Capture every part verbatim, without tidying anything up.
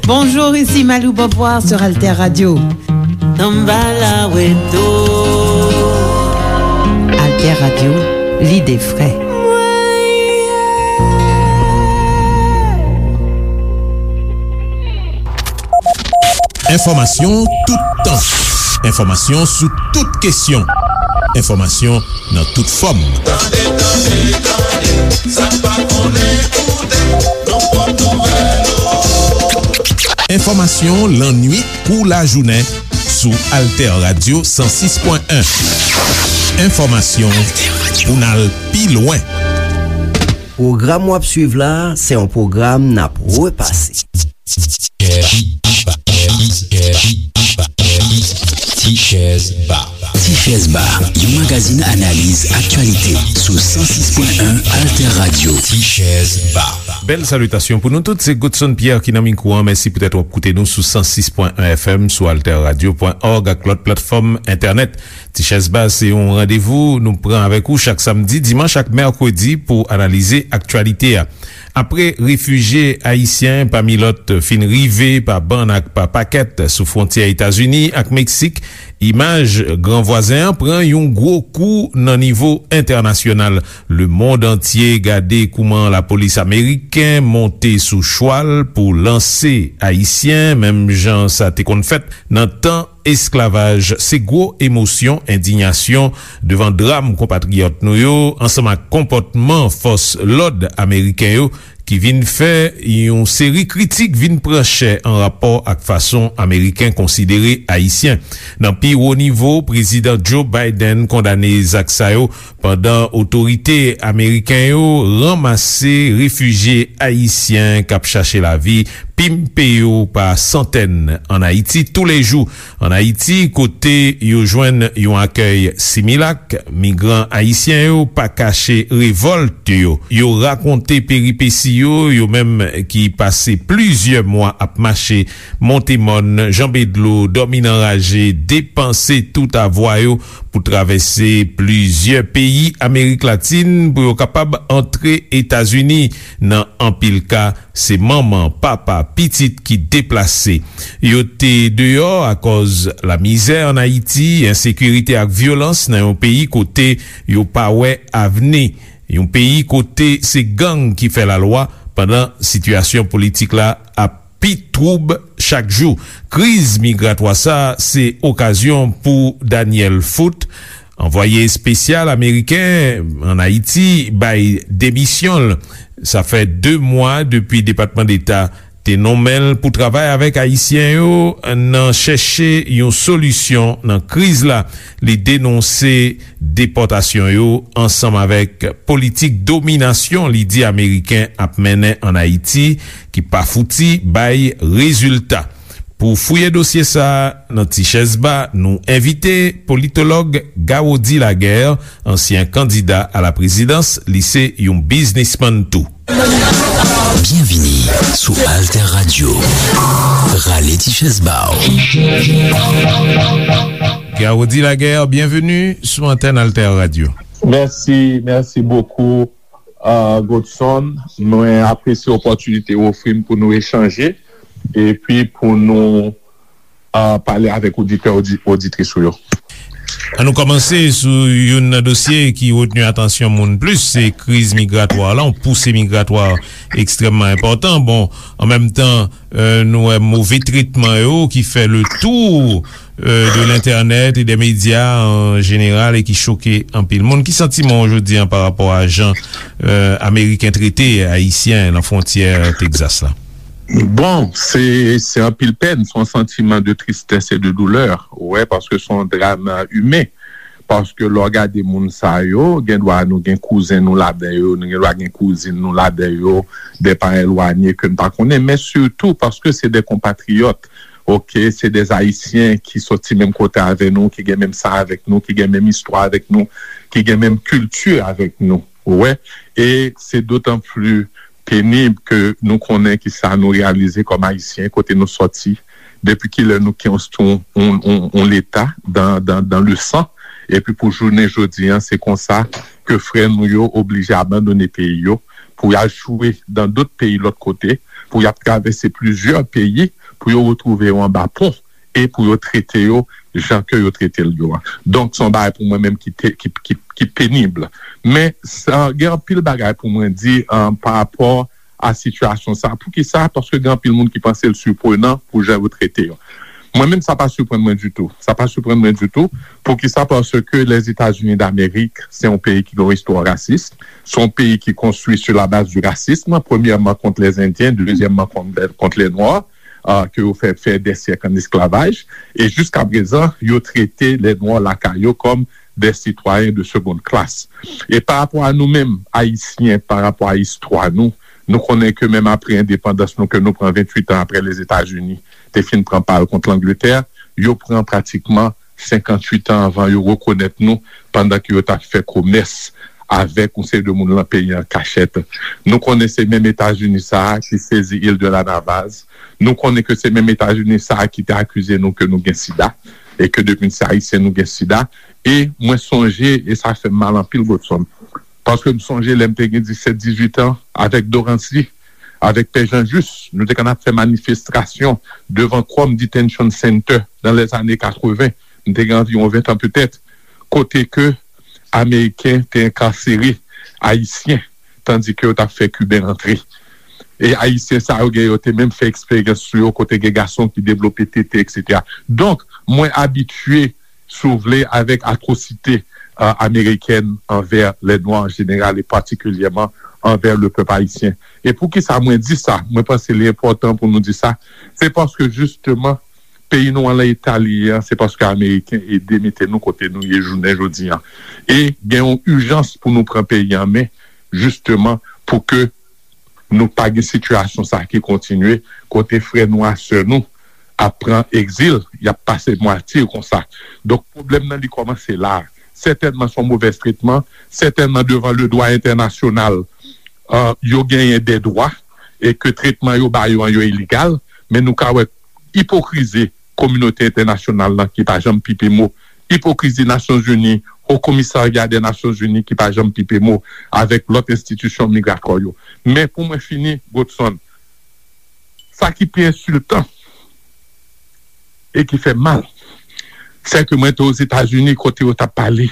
Bonjour, ici Malou Beauvoir sur Alter Radio. Alter Radio, l'idée vraie. Enfòmasyon toutan. Enfòmasyon sou tout kesyon. Enfòmasyon nan tout fòm. Tande, tande, tande, sa n pa konnen, koute, nan pwòp nouvèl yo. Enfòmasyon lannwit kou lajounen sou Alter Radio san sis pwen en. Enfòmasyon pou n al pi lwen. Pwogram w ap swiv la, se yon pwogram n ap repase. Tichèz Ba. Tichèz Ba, yon magazin analiz aktyalite sou san sis pwen en Alter Radio. Tichèz Ba. Bèl salitasyon pou nou tout, se Godson Pierre ki nan mikwo an. Mèsi poutèt w ap koute nou sou san sis pwen en F M, sou alter radio pwen org ak lòt platfòm entènèt. Tichèz Ba se yon randevou nou pran avèk ou chak samdi, dimanch ak mèkredi pou analize aktyalite a. Apre refijye ayisyen, pami lòt, fin rive pa bann ak pa pakèt sou fwontyè Etazini ak Meksik, imaj gran vwazen an pran yon gwo kou nan nivo entènasyonal. Lemonn antye gade kouman lapolis ameriken monte sou chwal pou lanse ayisyen, menm jan sa te konn fèt nan tan esklavaj. Se gwo emosyon, endiyasyon devan dram konpatriyòt nou yo, ansanm ak konpòtman fòs lòd ameriken yo, ki vin fè yon seri kritik vin pran chè an rapò ak fason Ameriken konsidere Ayisyen. Nan pi wo nivo, Prezidan Joe Biden kondane zak sa yo, pandan otorite ameriken yo ranmase refijye ayisyen k ap chache lavi, pimpe yo pa santèn ann Ayiti toulejou. Ann Ayiti, kote yo jwenn yon akèy similak, migran ayisyen yo pa kache revòlt yo. Yo rakonte peripesi yo, yo menm ki pase plizyè mwa ap mache, monte mòn, janbe dlo, dòmi nan raje, depanse tout avwa yo pou travèse plizyè peyi Amerik Latin pou yo kapab antre Etazini. Nan anpil ka, se manman, papa, pitit ki deplase. Yo te deyò akòz lamizè ann Ayiti, ensekirite ak vyolans nan yon peyi kote yo pa wè avni. Yon peyi kote se gang ki fè lalwa pandan sitiyasyon politik la ap pi twoub chak jou. Kriz migratwa sa a se okazyon pou Daniel Foote, anvwaye espesyal ameriken ann Ayiti, bay demisyon l. Sa fè de mwa depi Depatman Deta te nonmen l pou travay avèk Ayisyen yo nan chèche yon solisyon nan kriz la. Li denonse depòtasyon yo ansanm avèk politik dominasyon li di Ameriken ap mennen ann Ayiti, ki pa fouti bay rezilta. Pou fouye dosye sa a nan Ti Chèz Ba, nou envite politològ Gawody Laguerre, ansyen kandida a la prezidans, li se yon biznismann tou. Byenvini sou Alter Radio. Rale ti chèz ba w. Gawody Laguerre, byenveni sou antèn Alter Radio. Mèsi, mèsi bokou, uh, Godson. Mwen apresye opòtinite w ofri m pou nou echanje epi pou nou, uh, pale avèk oditè, odi-, oditris ou yo. An nou kòmanse sou youn nan dosye ki retni atansyon moun plis, se kriz migratwa la, yon pousi migratwa ekstrèmman enpòtan. Bon, an menm tan, euh, nou wè move tretman yo ki fè le tour, euh, de l'entènèt e dè medya an jeneral e ki choke anpil moun. Ki santiman w jodi a pa rapò a jan, euh, Ameriken trete Ayisyen nan fwontyè Tegzas la? Bon, se, se anpil pèn, se yon santiman de tristès e de doulè, ou wè, paske se yon dram, euh, imen. Paske lè w gade moun sa yo, gen dwa nou gen kouzen nou ladan yo, nou gen dwa gen kouzin nou ladan yo, de paran elwanye ke n pa konnen, men sitou paske se de konpatriyòt, oke, se de Ayisyen ki soti menm kote avè nou, ki gen menm san avèk nou, ki gen menm istwa avèk nou, ki gen menm kilti avèk nou, ou wè. E se dotan pli penib ke nou konnen ki sa nou reyalize kòm Ayisyen, kote nou sòti, depi kilè nou konstwi yon, yon, yon, yon leta dan, dan, dan le san, Epi pou jounen jodi an, se konsa ke frè nou yo oblije abandone peyi yo pou y al chwe dan dòt peyi lòt kote, pou y ap travèse plizyè peyi pou yo retwouve yo anba pon e pou yo trete yo jan ke yo trete l yo a. Donk, se yon bagay pou mwen menm ki, te, ki, ki, ki penib. Men, sa, gen anpil bagay pou mwen di uh, pa rapò a sitiyasyon sa. Poukisa? Paske gen anpil moun ki panse l siprenan pou jan yo trete yo. Mwen menm, sa pa siprann mwen ditou. Sa pa siprann mwen ditou. Poukisa? Paske Lèzetazini Damerik, se yon peyi ki gen yon istwa rasis. Se yon peyi ki konstwi sou la baz di rasism, premyèman kont lèzendyen, dezyèmman kont, kont lè nwa, uh, ke yo fè, fè dè syèk an esklavaj. E jiska prezan, yo trete lè nwa lakay yo kòm des citoyens de seconde classe. E pa rapò a nou menm, Ayisyen, pa rapò a istwa nou, nou konnen ke menm apre endepandans nou, ke nou pran venntuit an apre Lèzetazini te fin pran pa l kont Langletè, yo pran pratikman senkanntuit an anvan yo rekonèt nou, pandan ke yo t ap fè komès avèk yon seri de moun lan peyi an kachèt. Nou konnen se menm Etazini sa a ki sezi Il de la Navaz. Nou konnen ke se menm Etazini sa a ki te akize nou ke nou gen sida e ke depi n se Ayisyen nou gen sida. E mwen sonje, e sa fè m mal anpil, Godson, paske m sonje lè m te gen disèt, dizuit an, avèk Dorancy, avèk Pè Jean Juste, nou te konn ap fè manifestasyon devan Krome Detention Center nan lèzane katreven. M te gen anviwon ven an petèt, kote ke Ameriken te enkasere Ayisyen, tandi ke yo t ap fè Kiben rantre. E Ayisyen sa yo gen, yo te menm fè eksperyans sou yo, kote gen gason ki devlope tete, etsetera. Donk, mwen abitye, si w vle, avèk atwosite uh, amerikèn anvè lè nwa an jeneral e patikilyèman anvè le pèp ayisyen. E poukisa mwen di sa? Mwen panse li enpòtan pou nou di sa. Se paske jisteman, peyi nou an lan eta li ye an, se paske Ameriken ede mete nou kote nou ye jounen jodi an. E gen yon ijans pou nou pran peyi an men, jisteman, pou ke nou pa gen sitiyasyon sa ki kontinye, kote frè nou a sè nou ap pran egzil, y ap pase matye konsa. Donk, pwoblèm nan li kòmanse la. Sètènman, se yon movèz tretman, sètènman, devan le dwa entènasyonal, uh, yo genyen de dwa, e ke tretman yo ba yo an yo ilegal, men nou ka wè ipokrizi kominote entènasyonal lan ki pa janm pipe mo, ipokrizi Nasyonzini, Haut Commissariat des Nations Unies ki pa janm pipe mo avèk lòt enstitisyon migratwa yo. Men pou mwen fini, Godson, sa ki pi ensiltan e ki fè mal, se ke mwen te Ozetazini kote yo t ap pale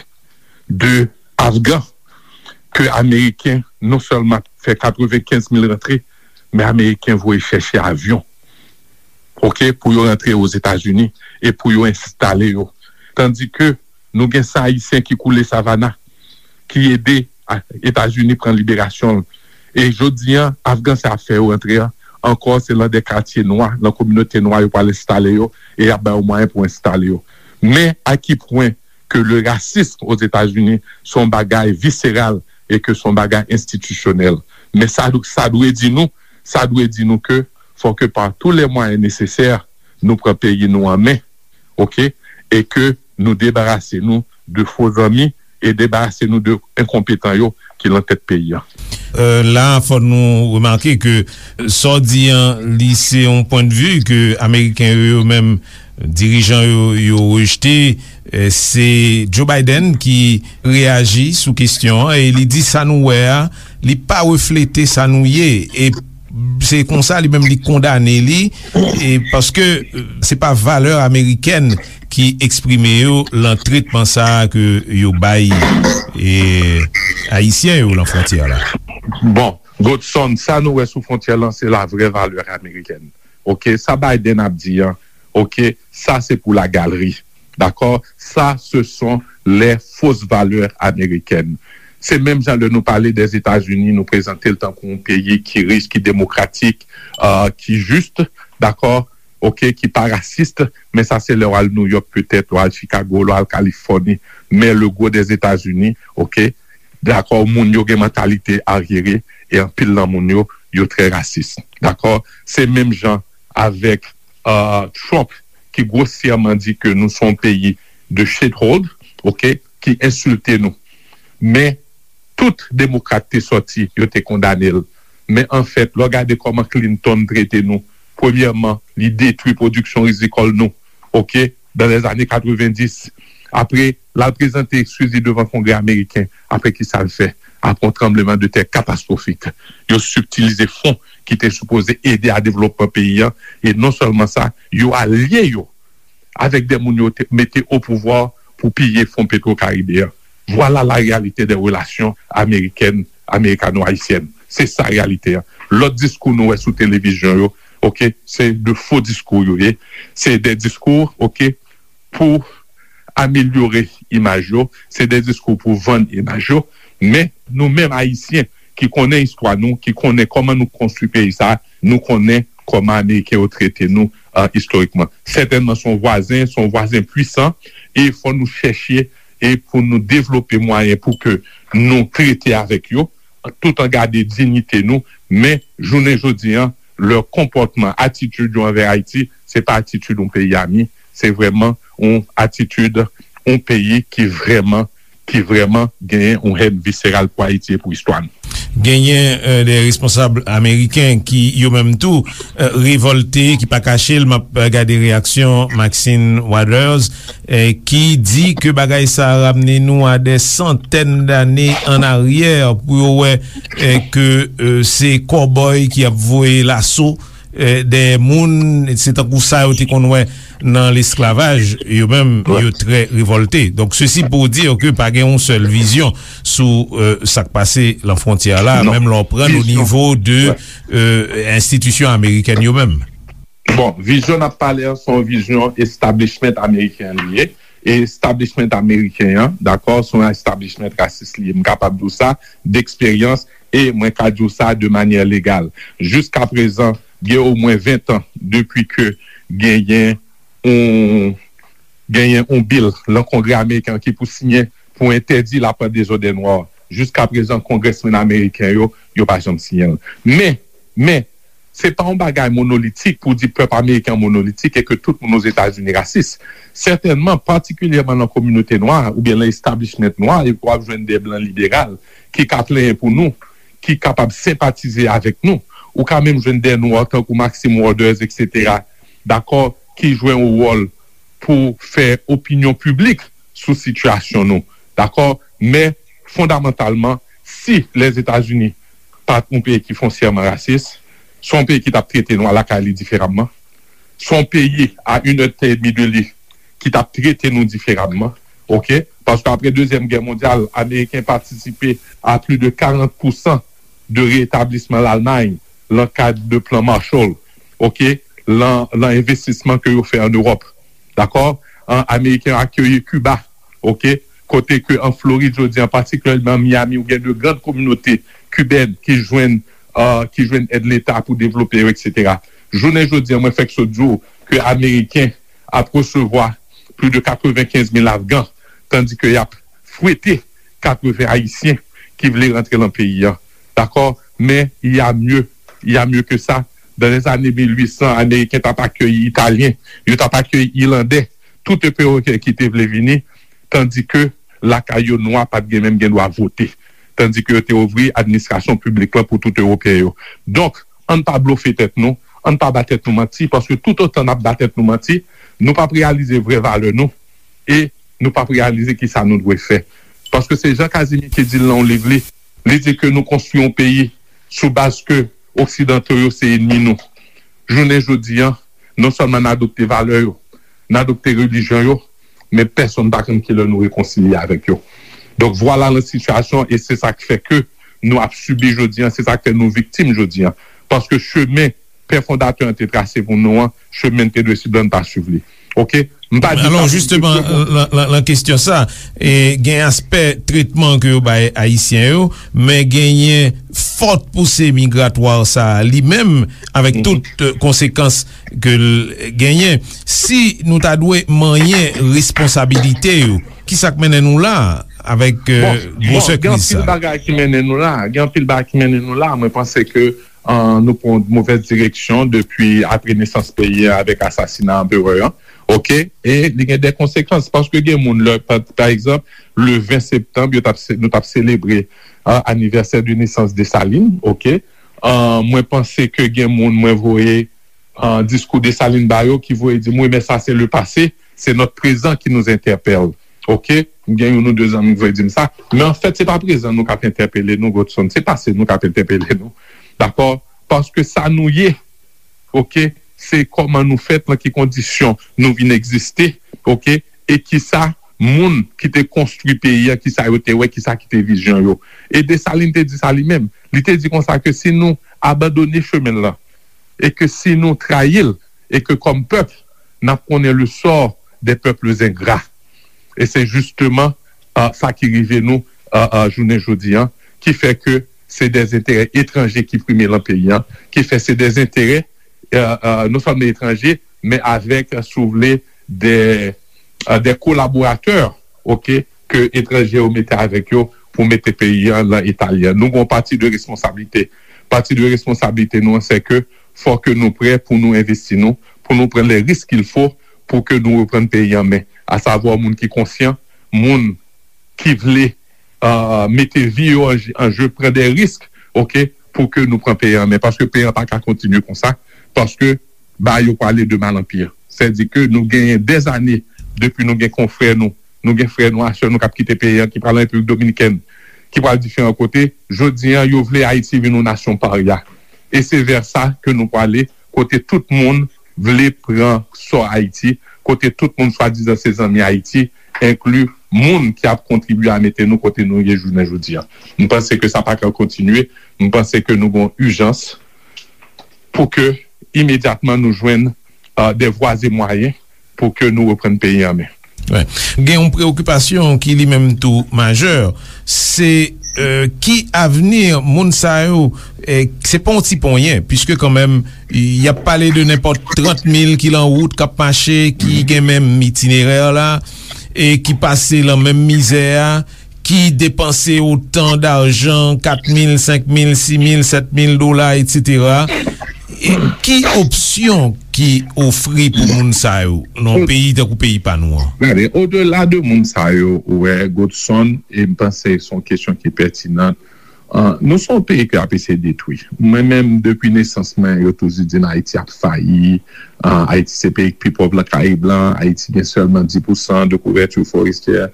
de Afgan, ke Ameriken non sèlman fè katrevenkenz mil rantre, men Ameriken voye chèche avyon, oke, pou yo rantre Ozetazini e pou yo enstale yo. Tandi ke nou gen san Ayisyen ki koule Savannah, ki ede a, Etazini pran liberasyon l. E jodi an, Afgan sa ap fè yo rantre an, ankò se lan de katye nwa, lan kominote nwa yo pral enstale yo, e y ap ba yo mwayen pou enstale yo. Men a ki pwen ke le rasism Ozetazini se yon bagay viseral e ke se yon bagay enstitisyonèl. Men sa, sa dwe di nou, sa dwe di nou ke fò ke pa tou lè mwayen nesesè, nou pran peyi nou an men, oke, e ke nou debarase nou de fo zanmi e debarase nou de enkonpetan yo ki lan tèt peyi an. Euh, la, fò nou remake ke sa w di an, li se yon pwennvi ke Ameriken yo, yo menm, dirijan yo, yo rejte. Euh, se Joe Biden ki reyaji sou kesyon an e li di sa nou wè a, li pa reflete sa nou ye. E se konsa li menm li kondane li, e paske, euh, se pa valè amerikèn ki eksprime yo lan tretman sa a ke yo bay, e, Ayisyen yo lan fwontyè la. Bon, Godson, sa nou wè sou fwontyè lan, se la vrè valè amerikèn. Oke, sa Biden ap di an, oke, sa se pou la galeri. Dakò? Sa, ce sont les fausses valeurs américaines. Se menm jan lè nou pale dè Etazini, nou prezante l tankou yon peyi ki rich, ki demokratik, euh, ki jis, dakò? Oke, ki pa rasis, men sa se lè w al New York petèt, w al Chicago, w al Kalifòni. Men le gwo dè Etazini, oke, dakò, moun yo gen mantalite aryere e anpil nan moun yo, yo trè rasis. Dakò? Se menm jan avèk, euh, Trump ki gwosyèman di ke nou se yon peyi de shithole, oke, ki ensilte nou. Men tout demokrat te sòti, yo te kondane l. Men anfèt, lè w gade kòman Clinton trete nou, premyèman, li detwi pwodiksyon rizikòl nou, oke, dan lèzane katrevenndis. Apre, l al prezante ekskiz li devan Kongrè ameriken. Apre, ki sa l fè? Apre yon tranbleman de tè katastwofik, yo sibtilize fon ki te sipoze ede a devlopman peyi a. E non sèlman sa, yo alye yo avèk de moun yo te mete o pouvwa pou piye fon Petro Karibe a. Voilà la réalité des relations américaines, américano-haïtiennes. Se sa reyalite a. Lòt diskou nou wè sou televizyon yo, oke, se de fo diskou yo ye. Se de diskou, oke, pou amelyore imaj yo, se de diskou pou vann imaj yo. Men nou menm Ayisyen ki konnen istwa nou, ki konnen kòman nou konstwi peyi sa, nou konnen kòman Ameriken yo trete nou, uh, istorikman. Sètènman, se yon vwazen, se yon vwazen pwisan, e fò nou chèche e pou nou devlope mwayen pou ke nou trete avèk yo, tout an gade diyite nou, men jounen jodi an, lè konpòtman, atitid yo anvè Ayiti, se pa atitid yon peyi ami, se vrèman yon atitid yon peyi ki vrèman, ki vrèman genyen yon hèn viseral pou Ayiti e pou istwa nou. Genyen de responsab ameriken ki yo menm tou revòlte, ki pa kache l. M ap gade reyaksyon Maxine Waters, ki di ke bagay sa a ramne nou a de santèn dane an aryè, pou yo wè ke se kòbòy ki ap voye laso dèyè moun. Se tankou sa yo te konn wè nan lesklavaj. Yo menm, yo trè revòlte. Donk sesi pou di ke pa gen yon sèl vizyon sou sa k pase lan fwontyè la, menm lè w pran o nivo de enstitisyon amerikèn yo menm. Bon, vizyon n ap pale an se yon vizyon establishment ameriken li ye. E establishment ameriken an, dakò, se yon establishment rasis li ye. M kapab di w sa deksperyans, e mwen ka di w sa de manyè legal. Jiskaprezan, gen omwen ven tan depi ke genyen yon genyen yon bil lan Kongrè ameriken an ki pou siyen pou entèdi lapwent dezòdè nwa. Jiskaprezan, kongrèsmenn ameriken yo, yo pa janm siyen l. Men, men, se pa yon bagay monolitik pou di pèp ameriken an monolitik e ke tout moun Ozetazini rasis. Sètènman, patikilyèman lan kominote nwa oubyen lan establishment nwa, w ap jwenn de blan liberal ki ka plenyen pou nou, ki kapab senpatize avèk nou. Ou ka menm jwenn de nwa tankou Maxine Waters, etsetera, dakò, ki jwe yon wòl pou fè opinyon piblik sou sitiyasyon nou. Dakò? Men, fondamantalman, si Lèzetazini pa t yon peyi ki fonsyèman rasis, se yon peyi ki t ap trete nwa lakay li diferaman. Se yon peyi a inèdtan edmi de li ki t ap trete nou diferaman. Oke? Paske apre Dezyèm Gè Mondyal, Ameriken patisipe a plis de karant pousan de retablisman Lalmay lan kad de plan Marshall, oke, lan, lan envestisman ke yo fè an Ewòp. Dakò? An, Ameriken yo akeyi Kiba, oke, kote ke an Florid jodi an, patikilyèman Miami, ou gen de grann kominote kibèn ki jwenn, uh, ki jwenn èd Leta pou devlope yo, etsetera. Jounen jodi an, mwen fèk sot di w ke Ameriken ap resevwa plis de katrevenkenz mil Afgan, tandi ke y ap fwete katreven Ayisyen ki vle rantre lan peyi a. Dakò? Men, il y a mieux, il y a mieux que ça. Dans les années mil uit san, Ameriken t ap akeyi Italyen, yo t ap akeyi Ilandè, tout Ewopeyen ki te vle vini, tandi ke lakay yo nwa pa t gen menm gen dwa vote. Tandi ke yo te ouvri administrasyon piblik lan pou tout Ewopeyen yo. Donk, ann pa blofe tèt nou, ann pa ba tèt nou manti, paske toutotan n ap ba tèt nou manti, nou p ap reyalize vrè valè nou, e nou p ap reyalize kisa nou dwe fè. Paske se Jean Casimir ki di l nan yon liv li, li di ke nou konstwi yon peyi sou baz ke Oksidanto yo se enmi nou. Jounen jodi an, non sèlman n adopte valè yo, n adopte relijyon yo, men pèsonn pa konn kilè nou rekonsilye avèk yo. Donk, vwala la sitiyasyon, e se sa k fè ke nou ap sibi jodi an, se sa k fè nou viktim jodi an. Paske chemen pè fondatè an te trase pou nou an, chemen n te dwe swiv la, n pa swiv li. Oke? M pa di sa pou jisteman, lan, lan, lan kesyon sa, e, gen aspè tretman ke yo bay Ayisyen yo, men genyen fòt pouse migratwa sa a li menm, avèk tout, e, konsekans ke l genyen. Si nou ta dwe manyen responsabilite yo, kisa k mennen nou la avèk, e, gwosè kriz sa? Bon, bon, gen anpil bagay ki mennen nou la. Gen anpil bagay ki mennen nou la. Mwen panse ke, e, nou pran yon movèz direksyon depi apre nesans peyi a avèk asasina anperè an. Oke? E li gen de konsekans, paske gen moun, lè, pa, pa egzanp, le ven septanm, yo t ap se-, nou t ap selebre, e, anivèsè de nesans Desalin, oke? E, mwen panse ke gen moun, mwen voye, e, diskou Desalin ba yo ki voye di m, wi, men sa se le passé, c'est notre présent qui nous interpelle. Oke, m gen youn ou de zanmi k voye di m sa. Men anfèt, se pa prezan nou k ap entèpele nou, Godson. Se pase nou k ap entèpele nou. Dakò? Paske sa nou ye, oke, se kòman nou fèt, nan ki kondisyon nou vin egziste, oke, e kisa moun ki te konstwi peyi a, kisa yo te wè, kisa ki te vizyon yo. E Desalin te di sa li menm. Li te di konsa ke si nou abandone chemen l lan, e ke si nou trayi l, e ke kòm pèp, n ap konnen le sort des peuples ingrats. E se jisteman, euh, sa ki rive nou, euh, euh, jounen jodi an, ki fè ke se de enterè etranje ki prime lan peyi an, ki fè se de enterè, euh, euh, non sèlman etranje, men avèk, si w vle, de, euh, de kolaboratè, oke, ke etranje yo mete avèk yo pou mete peyi an lan eta li an. Nou gen yon pati de responsablite. Pati de responsablite nou an, se ke fò ke nou prè pou nou envesti nou, pou nou pran le risk qu'il faut pou ke nou reprann peyi an men. Asavwa moun ki konsyan, moun ki vle, euh, mete vi yo an, an je, pran de risk, oke, pou ke nou pran peyi an men. Paske peyi an pa ka kontinye konsa, paske bagay yo prale de mal an pi. Sètadi ke nou genyen dèzane depi nou gen konfrè nou, nou gen frè nou, a sè nou k ap kite peyi an, ki pral an Repiblik Dominikèn, ki pral diferan kote. Jodi an, yo vle Ayiti vin yon nasyon parya. E se vè sa ke nou prale, kote tout moun vle pran sò Ayiti, kote tout moun swadizan se zanmi Ayiti, enkli moun ki ap kontribye a mete nou kote nou ye jounen jodi an. M panse ke sa pa ka kontinye. M panse ke nou gen ijans pou ke imedyatman nou jwenn, euh, de vwa e mwayen pou ke nou reprann peyi an men. Wi. Gen yon preokipasyon ki li menm tou majè, se, euh, ki avni moun sa yo, eh, se pa yon ti ponyen, piske kanmenm, y ap pale de nenpòt trant mil ki lan wout, k ap mache, ki gen menm itinerè la, e ki pase lan menm mizè a, ki depanse otan dajan, kat mil, senk mil, sis mil, sèt mil dola, etsetera. E ki opsyon ki ofri pou moun sa yo nan yon peyi tankou peyi pa nou an? Gade, odela de moun sa yo, ou wè, Godson, e m panse se yon kesyon ki pètinan. Ah, nou se yon peyi ke y ap eseye detwi. Mwen menm, depi nesans mwen, yo toujou di m Ayiti ap fayi. Ah, Ayiti se peyi k pi pòv lan Karayib lan. Ayiti gen sèlman dis pousan de kouvèti forestyè.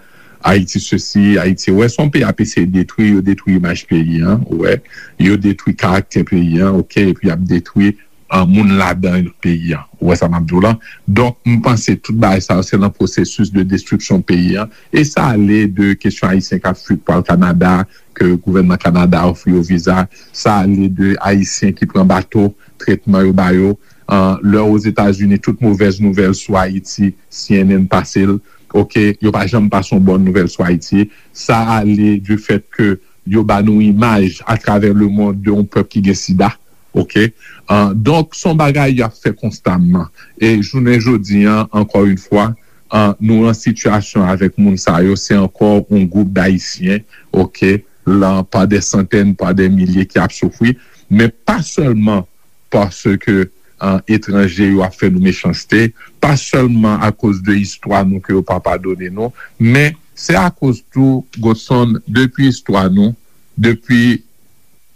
Ayiti sesi, Ayiti, ou wè, se yon peyi ap eseye detwi, yo detwi imaj peyi an, ou wè, yo detwi karaktè peyi an, oke, epi y ap detwi, ah, moun ladan peyi an. Ou wè sa m ap di w lan? Donk, m panse tout bagay sa yo, se nan pwosesis de destriksyon peyi an. E sa ale de kesyon Ayisyen k ap fui pou al Kanada, ke gouvènman Kanada ofri yo viza. Sa ale de Ayisyen ki pran bato, tretman yo ba yo. Ah, lè Ozetazini, tout movèz nouvèl sou Ayiti, C N N pase l. Oke, yo pa janm pase yon bòn nouvèl sou Ayiti. Sa ale du fèt ke yo ba nou imaj atravè lemond de yon pèp ki gen sida. Oke? Ah, donk, se yon bagay y ap fè konstamman. E jounen jodi an, ankò yon fwa, ah, nou an sitiyasyon avèk moun sa yo, se ankò yon gwoup d Ayisyen, oke, lan pa de santèn, pa de milye ki ap soufri, men pa sèlman paske, ah, etranje yo ap fè nou mechanste, pa sèlman akoz de istwa nou ke yo pa padone nou, men se akoz tou, Godson, depi istwa nou, depi,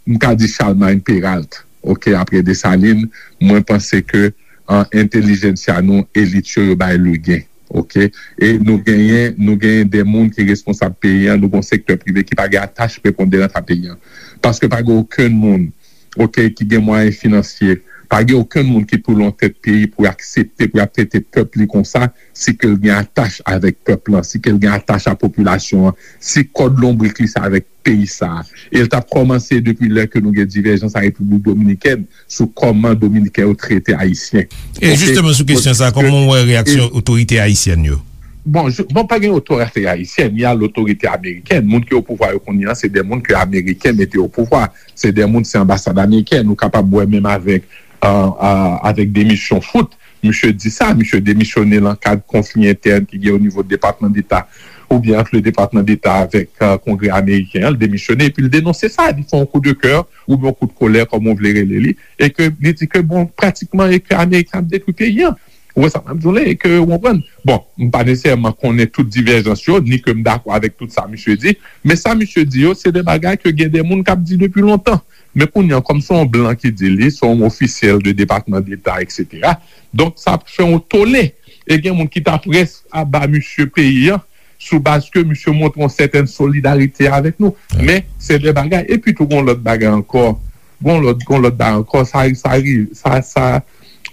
m ka di, Charlemagne Péralte, oke, apre Desalin, mwen panse ke, ah, entèlijensya nou, elit yo, yo bay legen, oke? E nou genyen, nou genyen de moun ki responsab peyi an, nou gen yon sektè prive ki pa gen atach preponderan a peyi an. Paske pa gen okenn moun, oke, ki gen mwayen finansye, pa gen okenn moun ki pou lan tèt peyi pou aksepte, pou y ap trete pèp li konsa, si ke l gen atach avèk pèp lan, si ke l gen atach a popilasyon an, si kòd lonbrik li se avèk peyi sa a. E l t ap kòmanse depi lè ke nou gen divèjans a Repiblik Dominikèn sou kòman Dominiken yo trete Ayisyen. E jisteman sou kesyon sa, kòman w wè reyaksyon otorite ayisyèn yo? Bon, je, bon, pa gen otorite ayisyèn, y a lotorite amerikèn. Moun ki o pouvwa yo kounye a, se de moun ke Ameriken mete o pouvwa. Se de moun, se anbasad amerikèn. Ou kapab wè menm avèk, euh, euh, avèk demisyon Foote. Misye di sa, misye demisyone lan kad konfli entèn ki gen o nivo Depatman Deta oubyen ant le Depatman Deta avèk, euh, Kongrè ameriken an, l demisyone, epi l denonse sa, li fè yon kou de kè oubyen yon kou de kolè, kòman w vle rele li, e ke li di ke, bon, pratikman, e ke Ameriken ap detwi peyi an. Ou wè sa m ap di w la, e ke, ou konprann? Bon, m pa nesesèman konnen tout divèjans yo, ni ke m dakò avèk tout sa misye di, men sa misye di yo, se de bagay ke gen de moun k ap di depi lontan. Men kounye a, kòm se yon blan ki di li, se yon ofisyèl de Depatman Deta, etsetera. Donk, sa ap fè yon tole. E gen moun ki ta près a ba misye peyi an, sou baz ke misye montre yon sètèn solidarite avèk nou. Men, se de bagay. Epi tou, gon lòt bagay ankò. Gon lòt, gon lòt bagay ankò. Sa, sa, sa, sa,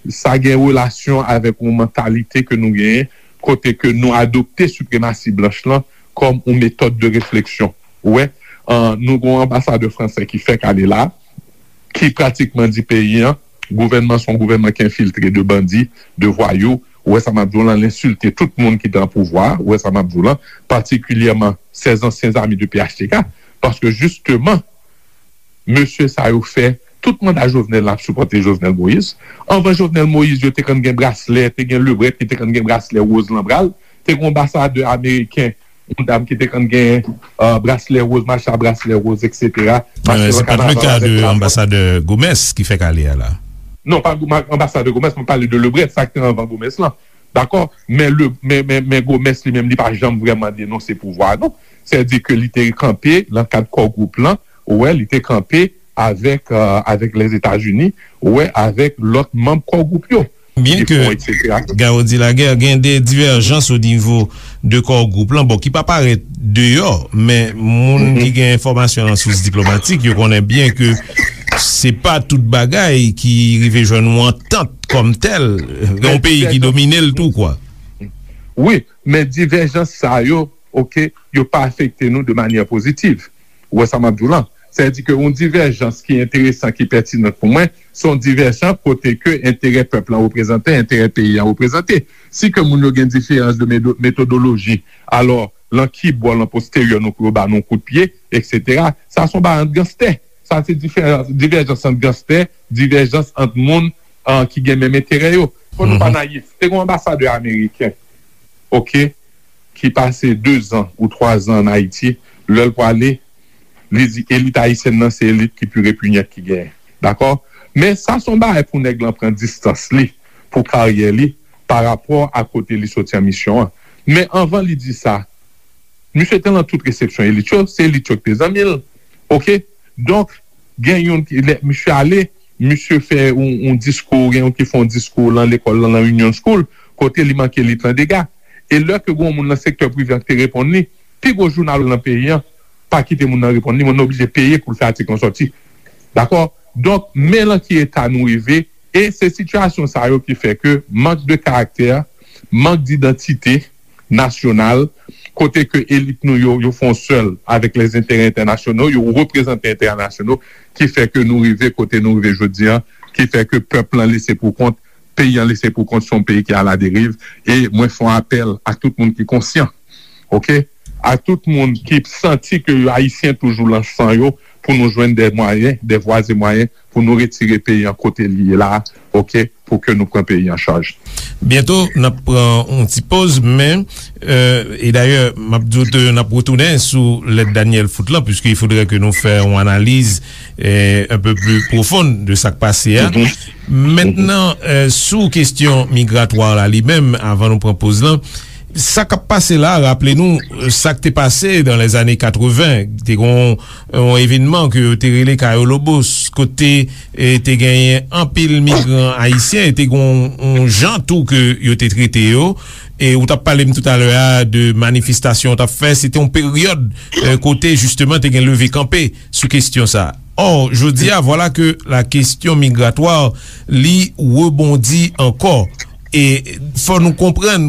sa gen relasyon avèk yon mantalite ke nou genyen, kote ke nou adopte sipremasi blanch lan kòm yon metòd de refleksyon. Ou wè, an, nou gon anbasadè fransè ki fèk ale la, ki pratikman di peyi an, gouvènman se yon gouvènman ki enfiltre de bandi, de vwayou. Ou wè sa m ap di w lan, l ensilte tout moun ki te an pouvwa. Ou wè sa m ap di w lan, patikilyèman sèz ansyen zami de P H T K. Paske jisteman, mesye sa yo fè tout manda Jovenel la ap sipòte Jovenel Moïse. Anvan Jovenel Moïse, yo te konn gen braslè, te gen Lebrèt ki te konn gen braslè woz lan bra l, te gen anbasadè ameriken, yon dam ki te konn gen, euh, braslè woz, mache a braslè woz, et cetera. Mache nan kanaval avèk drapo. Se pa t le ka de anbasadè Gomes ki fèk ale a la. Non, pa Goma-, anbasadè Gomes, mwen pale de Lebrèt, sa ki te anvan Gomes lan. Dakò? Men, le, men, men, men Gomes li menm, li pa janm vrèman denonse pouvwa a, non. Sètadi ke li te kanpe nan kad Core Group lan, ou wè, li te kanpe avèk, euh, avèk Lèzetazini, ou wè, avèk lòt manm Core Group yo. Byen ke Garo di Lagè gen de divèjans o nivo de Core Group lan, bon, ki pa parèt deyò, men moun ki gen enfòmasyon nan sous diplomatik, yo konnen byen ke se pa tout bagay ki rive jwenn yon antant kòm tèl, gen yon peyi ki domine l tou, kwa. Wi, men divèjans sa yo, oke, yo pa afekte nou de manyè pozitiv. Ou wè sa m ap di w lan? Sètadi ke yon divèjans ki enteresan, ki pètinan pou mwen, se yon divèjans kote ke enterè pèp lan reprezante, enterè peyi an reprezante. Si ke moun yo gen diferans de medo-, metodoloji, alò, lan ki bò, lan posteryè, nou pou yo ba nou kout pye, et cetera. Sa se yon bagay ant ganstè. Sa se diferans, divèjans ant ganstè, divèjans ant moun, ah, ki gen menm enterè yo. Fò nou pa nayif. Te gen yon anbasadè ameriken, oke, ki pase de zan ou twa zan ann Ayiti, lè l prale, li di elit ayisyèn nan se elit ki pi repinyant ki genyen. Dakò? Men sa se yon bagay pou nèg lan pran distans li, pou karyè li, pa rapò a kote li soti an misyon an. Men anvan li di sa, misye te lan tout resepsyon elit yo, se elit yo ki te zanmi l. Oke? Donk, gen youn ki, lè misye ale, misye fè yon, yon diskou, gen youn ki fè yon diskou lan lekòl lan, lan Union School, kote li manke elit lan dega. E lè ke gen yon moun nan sektè prive an ki te reponn li, pi gwo jounal lan peyi an pa kite moun nan reponn li, moun nan oblije peye pou l fè atik lan sòti. Dakò? Donk, men lan ki eta nou rive, e se sitiyasyon sa yo ki fè ke mank de karaktè, mank didantite nasyonal, kote ke elit nou yo, yo fè yon sèl avèk lèzenterè entènasyonal, yo reprezante entènasyonal, ki fè ke nou rive kote nou rive jodi an, ki fè ke pèp lan lese pou kont, peyi an lese pou kont, se yon peyi ki aladeriv, e mwen fè yon apèl ak tout moun ki konsyan, oke? Ak tout moun ki santi ke yo ayisyen toujou lan san yo, pou nou jwenn de mwayen, de vwa e mwayen, pou nou retire peyi an kote li ye la, oke? Pou ke nou pran peyi an chaj. Byento, n ap pran yon ti poz, men, euh, e dayè, m ap di w ke n ap retounen sou lèt Daniel Foot lan, puisque il faudrait que nou fè yon analiz, euh, un peu plus profonde de sa k pase a. Mentnan, euh, sou kesyon migratwa la li menm, avan nou pran poz lan, sa k ap pase la, raple nou, euh, sa k te pase dans les années quatre-vingts, te gen yon, yon evènman ke yo te rele Cayo Lobos, kote, e, te genyen anpil migran ayisyen, e te gen yon, yon jan tou ke yo te trete yo. E ou t ap pale m toutalè a de manifestasyon ou t ap fè, se te yon peryòd, e, kote jisteman te gen leve kanpe sou kesyon sa. Ò, jodi a, vwala ke la kesyon migratwa, li rebondi ankò. E fò nou konprann,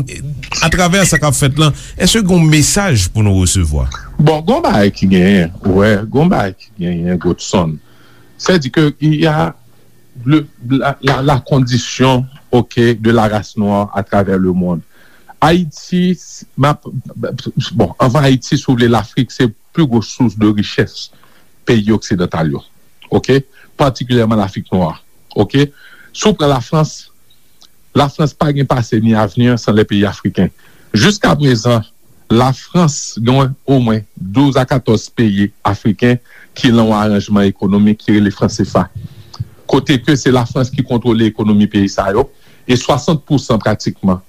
atravè sa k ap fèt lan, èske gen yon mesaj pou nou resevwa? Bon, gon bagay ki genyen, ou wè, gon bagay ki genyen, Godson. Sètadi ke il y a le, la, la, la condition, ok, de la race noire à travers le monde. Ayiti, m ap, bon, anvan Ayiti, si w vle, Lafrik se pli gwo sous de richès peyi oksidantal yo. Ok? Patikilyèman Lafrik nwa. Ok? Si w pran Lafrans, Lafrans pa gen pase ni avni san lè peyi afriken. Jiska prezan, Lafrans gen omwen douz a katòz peyi afriken ki lan yon aranjman ekonomik ki rele fran sefa. Kote ke se Lafrans ki kontwole ekonomi peyi sa yo, e swasant pousan pratikman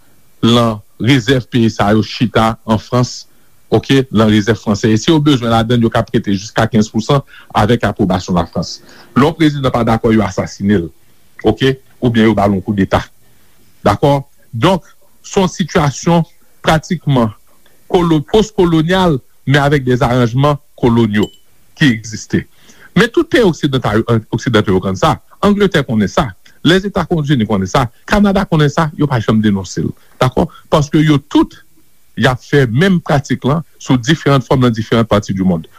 lan rezèv peyi sa yo chita an Frans, ok, lan rezèv fransè. E si yo bezwen ladann, yo ka prete jiska kenz pousan avèk apwobasyon Lafrans. Lè yon prezidan pa dakò, yo asasine l, ok, oubyen yo ba l yon koudeta. Dakò? Donk, se yon sitiyasyon pratikman kolo-, pos-kolonyal, men avèk de aranjman kolonyo ki egziste. Men tout peyi oksidantal, oksidantal yo konn sa. Angletè konnen sa. Lèzetazini konnen sa. Kanada konnen sa. Yo pa janm denonse l. Dakò? Paske yo tout, y ap fè menm pratik lan sou diferan fòm nan diferan pati di mond.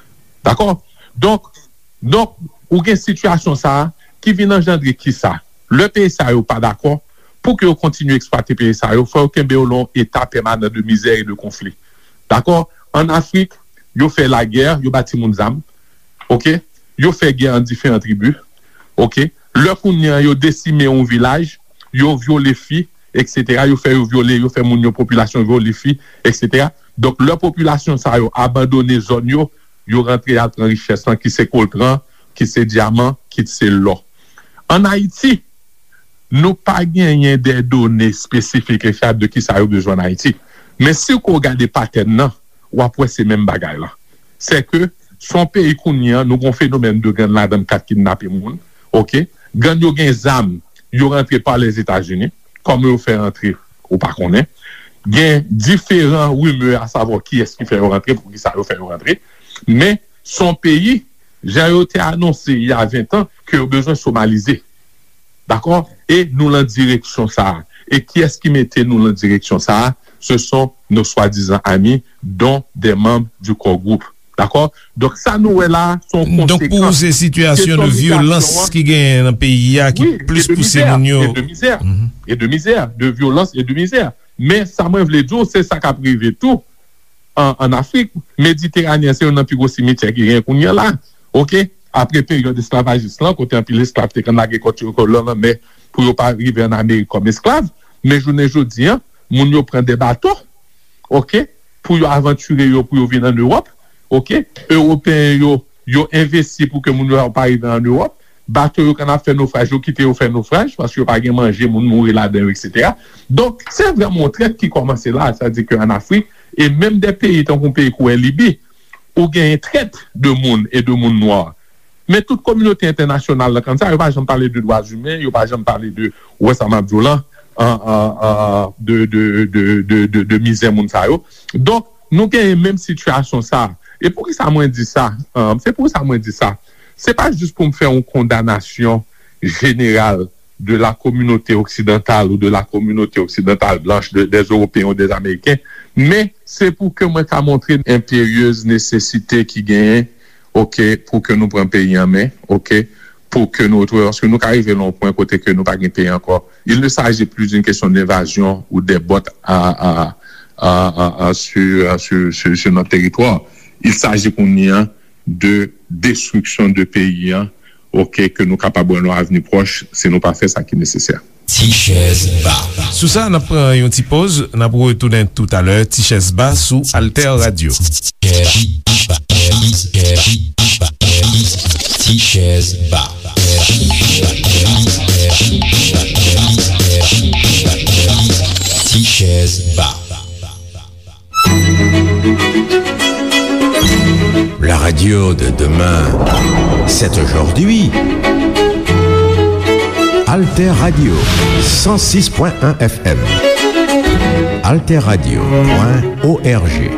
Dakò? Donk, donk, ou gen sitiyasyon sa a ki vin anjandre kisa? Lè peyi sa yo pa dakò, pou ke yo kontinye eksplwate peyi sa yo, fò yo kenbe yo lan yon eta pèmanan de mizè e de konfli. Dakò? Ann Afrik, yo fè lagè, yo ba timoun zam. Oke? Yo fè gè ant diferan tribi. Oke? Lè kounye a yo desime yon vilaj, yo vyole fi, etsetera. Yo fè yo vyole, yo fè moun yo, popilasyon vyole fi, etsetera. Donk, lè popilasyon sa yo abandone zòn yo, yo rantre al pran richès lan, ki se koltran, ki se dyaman, ki se lò. Ann Ayiti, nou pa genyen de done espesifik e fyab de kisa yo bezwen ann Ayiti. Men si w gade patèn nan, w ap wè se menm bagay la. Se ke se yon peyi kounye a, nou gen yon fenomèn de gang ladan k ap kidnape moun, oke? Gang yo gen zam, yo rantre pa Lèzetazini. Kòman yo fè rantre, ou pa konnen. Gen diferan rimè a savwa kiyès ki fè yo rantre, poukisa yo fè yo rantre. Men se yon peyi, jan yo te anonse il y a vingt ans, ke yo bezwen somalize. Dakò? E nou lan direksyon sa a. E kiyès ki mete nou lan direksyon sa a? Ce sont nos soi-disant amis, dont des membres du core group. Dakò? Donk, sa nou wè la, se yon konsekans. Donk, pou ou, se sitiyasyon de vyolans ki genyen nan peyi a ki plis pouse moun yo. Wi, e de mizè, e de mizè. Mhm. E de mizè, de vyolans e de mizè. Men, sa mwen vle di w, se sa k ap rive tou an, ann Afrik. Mediteraneyen, se youn nan pi gwo simityè ki genyen kounye a la. Oke? Apre peryòd esklavajis lan, kote anpil esklav te konn lage kò yo lan lanmè pou yo pa rive ann Amerik kòm esklav. Men jounen jodi a, moun yo pran de bato, oke, pou yo avantire yo, pou yo vin ann Ewòp, oke. Ewopeyen yo, yo envesti pou ke moun yo pa rive ann Ewòp. Bato yo konn ap fè nofraj, yo kite yo fè nofraj, paske yo pa gen manje, moun mouri ladan yo, etsetera. Donk, se vrèman yon trèt ki kòmanse la, sa di ke ann Afrik, e menm de peyi tankou yon peyi kou Libi, ou genyen trèt de moun e de moun nwa. Men tout kominote entènasyonal lan konn sa, yo pa janm pale de dwa imen, yo pa janm pale de, ou wè sa m ap di w lan, an, an, an, de, de, de, de, de, de mizè moun sa yo. Donk, nou genyen menm sitiyasyon sa. E poukisa mwen di sa? An, se poukisa mwen di sa. Se pa jis pou m fè yon kondanasyon jeneral de la communauté occidentale ou de la communauté occidentale blanche, de, des Européens ou des Américains, men se pou ke mwen ka montre enperyeuz nesesite ki genyen, oke, pou ke nou pran peyi an men, oke, pou ke nou retwouve, paske nou ka rive lan yon pwen kote ke nou pa gen peyi ankò. Il ne s'agit plus d'une question d'invasion ou des bottes à, à, à, à, à, sur, sur, sur, sur notre territoire. Il s'agit kounye a de destriksyon de peyi an, oke, ke nou kapab wè nan avni pwòch, si nou pa fè sa ki nesesè. Ti chèz ba. Sou sa, n ap pran yon ti poz, n ap retounen toutalè. Ti chèz ba sou Alter Radio. Ti chèz ba. Ti chèz ba. La radio de demain, c'est aujourd'hui. Alter Radio, cent six point un F M. Alter Radio point O R G.